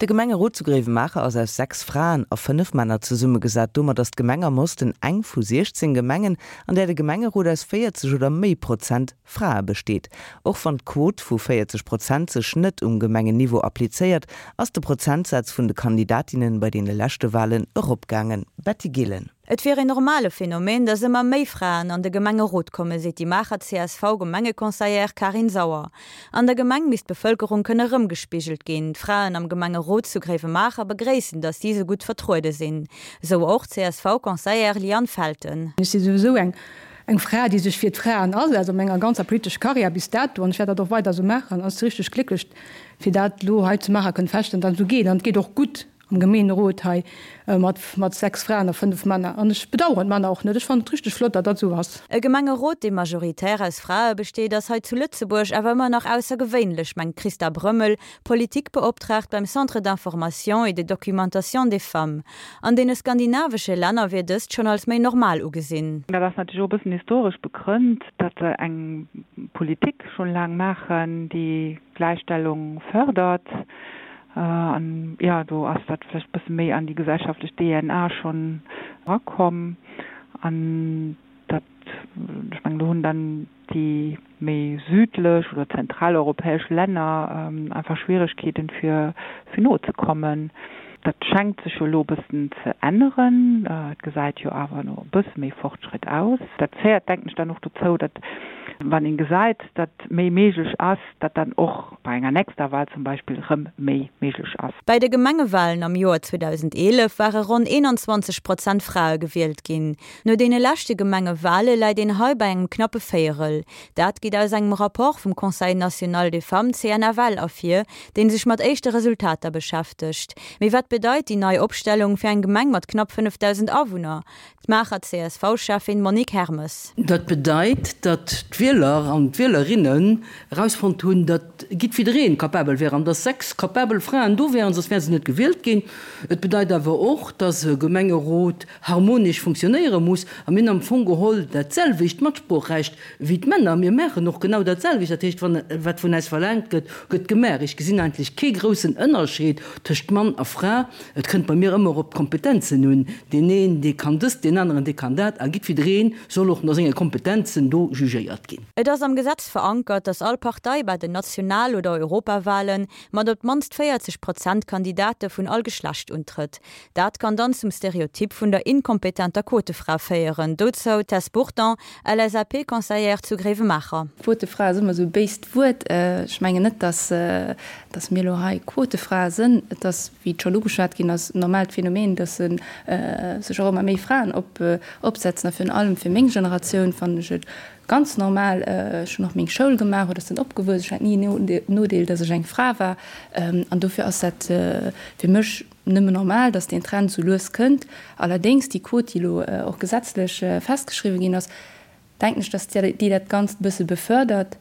De Gemengerot zu Gréiwemaacher ass aus 6 Fraen a 5 Männer zesummegesat. Domat ass d'Gemeng am Osten eng vu 16 Gemengen, an där de Gemengerot aus 40 oder méi Prozent Frae besteet. Och wann d'Quot vu 40 Prozent sech net um Gemengenniveau applizéiert, ass de Prozentsaz vun de Kandidatinnen bei deene leschte Walen eropgaangen. Betty Gillen. Et wier een normale Phänomen, datt ëmmer méi Fraen an de Gemengerot kommen, seet déi Maacher CSV-Gemengeconseillère Karin Sauer. An der Gemeng misst d'Bevëlkerung kënne rëmgespigelt ginn. D'Fraen am Gemengerot zu Gréiwemaacher begréissen, datt si sou gutt vertruede sinn. Esou och d'CSV-Conseillère Liane Felten. Ech si souwisou eng eng Fra, déi sech fir d'Fraen asetzt, a menger ganzer politescher Karriär bis dato, an ech wäert dat och weider esou maachen, ass richteg glécklech, fir dat elo hei zu Maacher kënnen feststellen, datt et esou geet. An et geet och gutt am Gemeenerot hei mat mat 6 Fraen a 5 Männer. An ech bedauern d'Männer och net. Ech fannen et richteg flott, datt dat esou ass. E Gemengerot, dee majoritär aus Frae besteet, ass hei zu Lëtzebuerg awer ëmmer nach aussergewéinlech, mengt d'Christa Brömmel, Politikbeoptraagt beim Centre d'information et de documentation des femmes. An deene skandinavesche Länner wier dëst schonn als méi normal ugesinn. Dat ass natierlech och e bëssen historesch begrënnt, datt se eng Politik schonn laang maachen, déi Gläichstellung fërdert. An jo, do ass dat vläicht e bësse méi an déi gesellschaftlech DNA schonn erakomm. An dat, ech mengen, do hunn dann déi méi südlech oder zentraleuropäesch Länner einfach Schwieregkeeten, fir nozekommen. Dat schenkt sech jo elo e bëssen ze änneren. Et gesäit jo awer no e bësse méi Fortschritt aus. Dat féiert, denken ech, dann och dozou, datt, wann een gesäit, datt méi méiglech ass, datt dann och bei enger nächster Wahl zum Beispill erëm méi méiglech ass. Bei de Gemengewalen am Joer 2011 ware ronn 21 Prozent Frae gewielt ginn. No deene leschte Gemengewale läit een hei bei engem knappe Véierel. Dat geet aus engem Rapport vum Conseil national des femmes, CNFL, ervir, dee sech mat éischte Resultater beschäftegt. Mee wat bedeit déi nei Opstellung fir eng Gemeng mat knapp 5.000 Awunner? D'Maacher CSV-Schäffin Monique Hermes. Dat bedeit, datt d'Wieler an d'Wielerinnen erausfonnt hunn, datt jiddwiddereen capabel wär an datt 6 capabel Fraen do wären, soss wäre se net gewielt ginn. Et bedeit awer och, datt e Gemengerot harmonesch funktionéiere muss. A mir hunn am Fong geholl dat selwecht Matsproochrecht wéi d'Männer. Mir maachen och genau dat selwecht. Dat heescht, wann wat vun äis verlaangt gëtt, gëtt gemaach. Ech gesinn eigentlech kee groussen Ënnerscheed tëscht Mann a Fra. Et kënnt bei mir ëmmer op d'Kompetenzen un. Deen een, dee kann dëst, deen aneren, dee kann dat. A jiddwidderee soll och no senge Kompetenzen do jugéiert ginn. Et ass am Gesetz verankert, datt all Partei bei den National oder Europawahlen mat op d'mannst 40 Prozent Kandidate vun all Geschlecht untrëtt. Dat kann dann zum Stereotyp vun der inkompetenter Quotefra féieren. Dozou d'Tess Burton, LSAP-Conseillère zu Gréiwemaacher. Quotefra ass ëmmer esou e béist Wuert. Ech mengen net, datt datt mir elo hei Quotefrae sënn. Et ass, wéi et schonn ugeschwat ginn ass, en normaalt Phänomen, datt sech och ëmmer méi Fraen opsetzen. A virun allem fir meng Generatioun fannen ech et ganz normal. Ech hunn och meng Schoul gemaach oder sinn opgewuess. Ech hat ni en Nodeel, datt ech eng Fra war. An dofir ass dat fir mech Nëmmen normal, datt deen Trend sou lues kënnt. Allerdéngs, déi Quot, déi elo och gesetzlech festgeschriwwen ginn ass, denken ech, datt déi dat Ganzt e bësse befördert.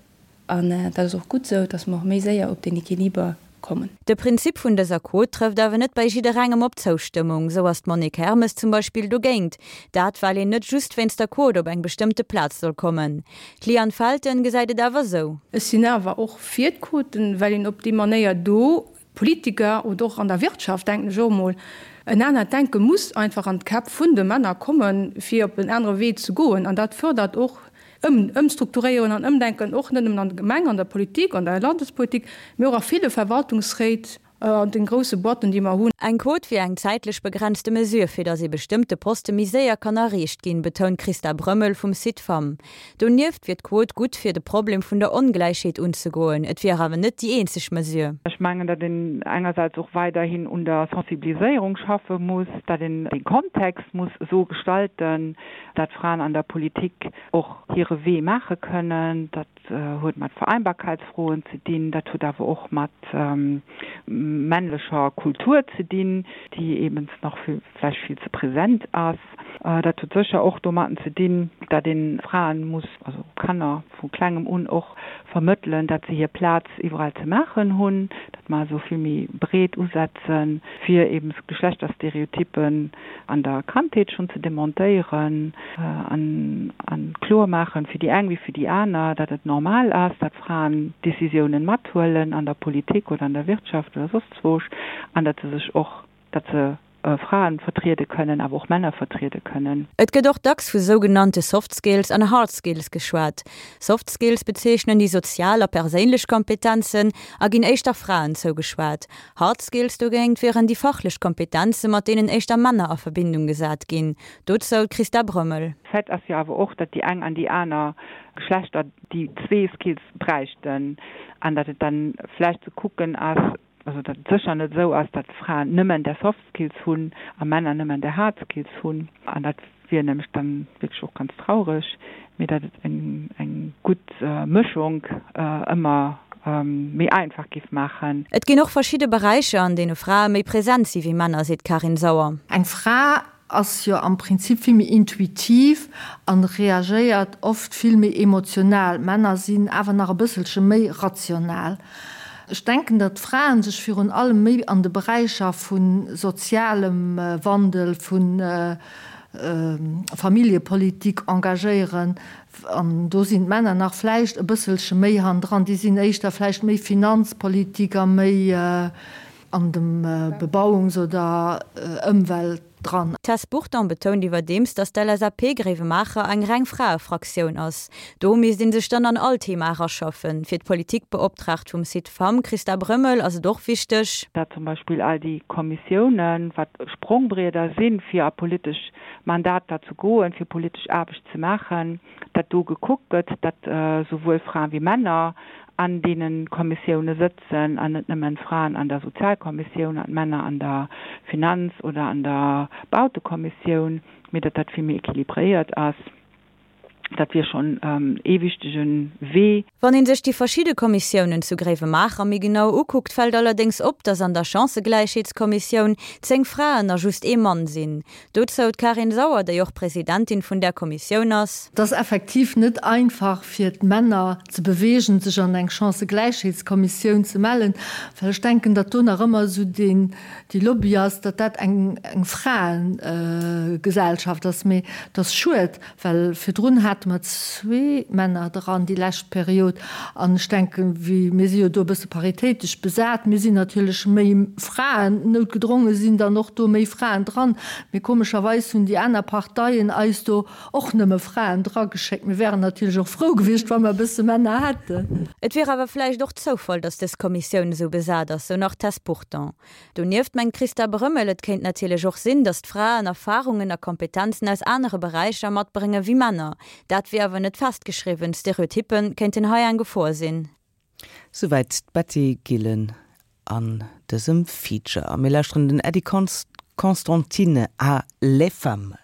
An dat ass och gutt esou, datt mer och méi séier op deen Equiliber kommen. De Prinzip vun dëser Quot trëfft awer net bei jidderengem op Zoustëmmung. Sou ass d'Monique Hermes zum Beispill dogéint. Dat well een net just wéinst der Quot op eng bestëmmte Plaz soll kommen. D'Liane Felten gesäit et awer sou. Ech sinn awer och fir d'Quoten, well een op déi Manéier do Politiker oder och an der Wirtschaft, denken ech och emol, en anert Denke muss einfach an d'Käpp vun de Männer kommen, fir op en anere Wee ze goen. An dat fërdert och Ëmstrukturéieren an Ëmdenken, och net nëmmen an der Gemeng, an der Politik, an der Landespolitik, mee och a ville Verwaltungsréit, an de grousse Boîten, déi mer hunn. Eng Quot wier eng zäitlech begrenzte Mesure, fir datt ee bestëmmte Poste méi séier kann erreecht ginn, betount d'Christa Brömmel vum Cid-Femmes. Donieft wier d'Quot gutt fir de Problem vun der Ongläichheet unzegoen. Et wier awer net déi eenzeg Mesure. Ech mengen, datt een engersäits och weiderhin un der Sensibiliséierung schaffe muss, datt een de Kontext muss esou gestalten, datt Fraen an der Politik och hire Wee maache kënnen. Dat huet mat Vereinbarkeitsfroen ze dinn, dat huet awer och mat männlecher Kultur ze dinn, déi eeben nach vläicht vill ze present ass. Dat huet sécher och domatten ze dinn, datt ee Fraen muss, also Kanner vu klengem un och vermëttelen, datt se hir Plaz iwwerall ze maachen hunn, datt mer also vill méi breet usetzen, fir eben Geschlechterstereotypen an der Kandheet schonn ze demontéieren an kloer maachen, fir déi eng wéi fir déi aner, datt et normal ass, datt Fraen Décisiounen mathuelen an der Politik oder an der Wirtschaft oder soss. soss zwoosch, an datt se sech och, datt se Fraen vertriede kënnen, awer och Männer vertriede kënnen. Et gëtt och dacks vu sougenannte Soft Skills an Hard Skills geschwat. Soft Skills bezeechnen déi sozial a perséinlech Kompetenzen a ginn éischter Fraen zougeschwat. Hard Skills dogéint wieren déi fachlech Kompetenze mat deenen éischter Männer a Verbindung gesat ginn. Dozou d'Christa Brömmel. Fait ass jo awer och, datt déi eng an déi aner Geschlechter déi zwee Skills bräichten an datt et dann vläicht ze kucken ass, also datt et sécher net esou ass, datt Fraen nëmmen där Soft Skills hunn a Männer nëmmen där Hard Skills hunn, an dat wier nämlech dann wierklech och ganz traureg, mee datt et eng eng gutt Mëschung ëmmer méi einfach géif maachen. Et ginn och verschidde Beräicher, an deene Frae méi present si wéi Männer, seet d'Karin Sauer. Eng Fra ass jo am Prinzip vill méi intuitiv an reagéiert oft vill méi emotional. Männer sinn awer nach e bësselche méi rational. Ech denken, datt d'Fraen sech virun allem méi an de Beräicher vu sozialem Wandel, vu Familljepolitik engagéieren an do sinn d'Männer nach vläicht e bësselche méi hannendran. Déi sinn éischter vläicht méi Finanzpolitik a méi. an dem Bebauungs oder Ëmwelt dran. D'Tess Burton betount iwwerdeems, datt d'LSAP Gréiwemaacher eng reng Fraefraktioun ass. Do misst ee sech dann an all Thema eraschaffen. Fir d'Politikbeoptraagt vum Site Femmes, Christa Brömmel, ass et och wichteg, datt zum Beispill all déi Kommissiounen, wat Sprongbrieder sinn, fir a politesch Mandater ze goen, fir politesch Aarbecht ze maachen, datt do gekuckt gëtt, datt souwuel Fraen wéi Männer an deene Kommissioune sëtzen an net nëmmen d'Fraen an der Sozialkommissioun an d'Männer an der Finanz oder an der Bautekommissioun, mee datt dat vill méi équilibréiert ass. Dat wier schonn ee wichtege Wee. Wann ee sech déi verschidde Kommissiounen zu Gréiwemaacher méi genau ukuckt, fält allerdéngs op, datt an der Chancëgläichheetskommissioun 10 Fraen a just ee Mann sinn. Dozou d'Karin Sauer, déi och Presidentin vun där Kommissioun ass. Et ass effektiv net einfach fir d'Männer ze beweegen, sech an eng Chancëgläichheetskommissioun ze mellen, well ech denken, datt do nach ëmmer esou deen, déi Lobby ass, datt dat eng Fraegesellschaft ass. Mee et ass schued, Well virdrun hate mer zwee Männer dran, déi lescht Period. An ech denken, wéi, mir si jo do e bësse paritéitesch besat, mir sinn natierlech méi Fraen, noutgedronge sinn dann och do méi Fraen dran. Mee komescherweis hunn déi aner Parteien eis do och nëmme Fraen drageschéckt. Mir wären natierlech och frou gewiescht, wa mer e bësse Männer hätten. Et wier awer vläicht och Zoufall, datt dës Kommissioun esou besat ass, sou nach d'Tess Burton. Donieft mengt d'Christa Brömmel, et kéint natierlech och sinn, datt d'Fraen Erfarungen a Kompetenzen aus anere Beräicher matbrénge wéi Männer. Dat wier awer net festgeschriwwen, Stereotyppe kéinten hei eng Gefor sinn. Souwäit d'Betty Gillen an dësem Feature. A mir lauschteren den Eddie Constantine a Les Femmes.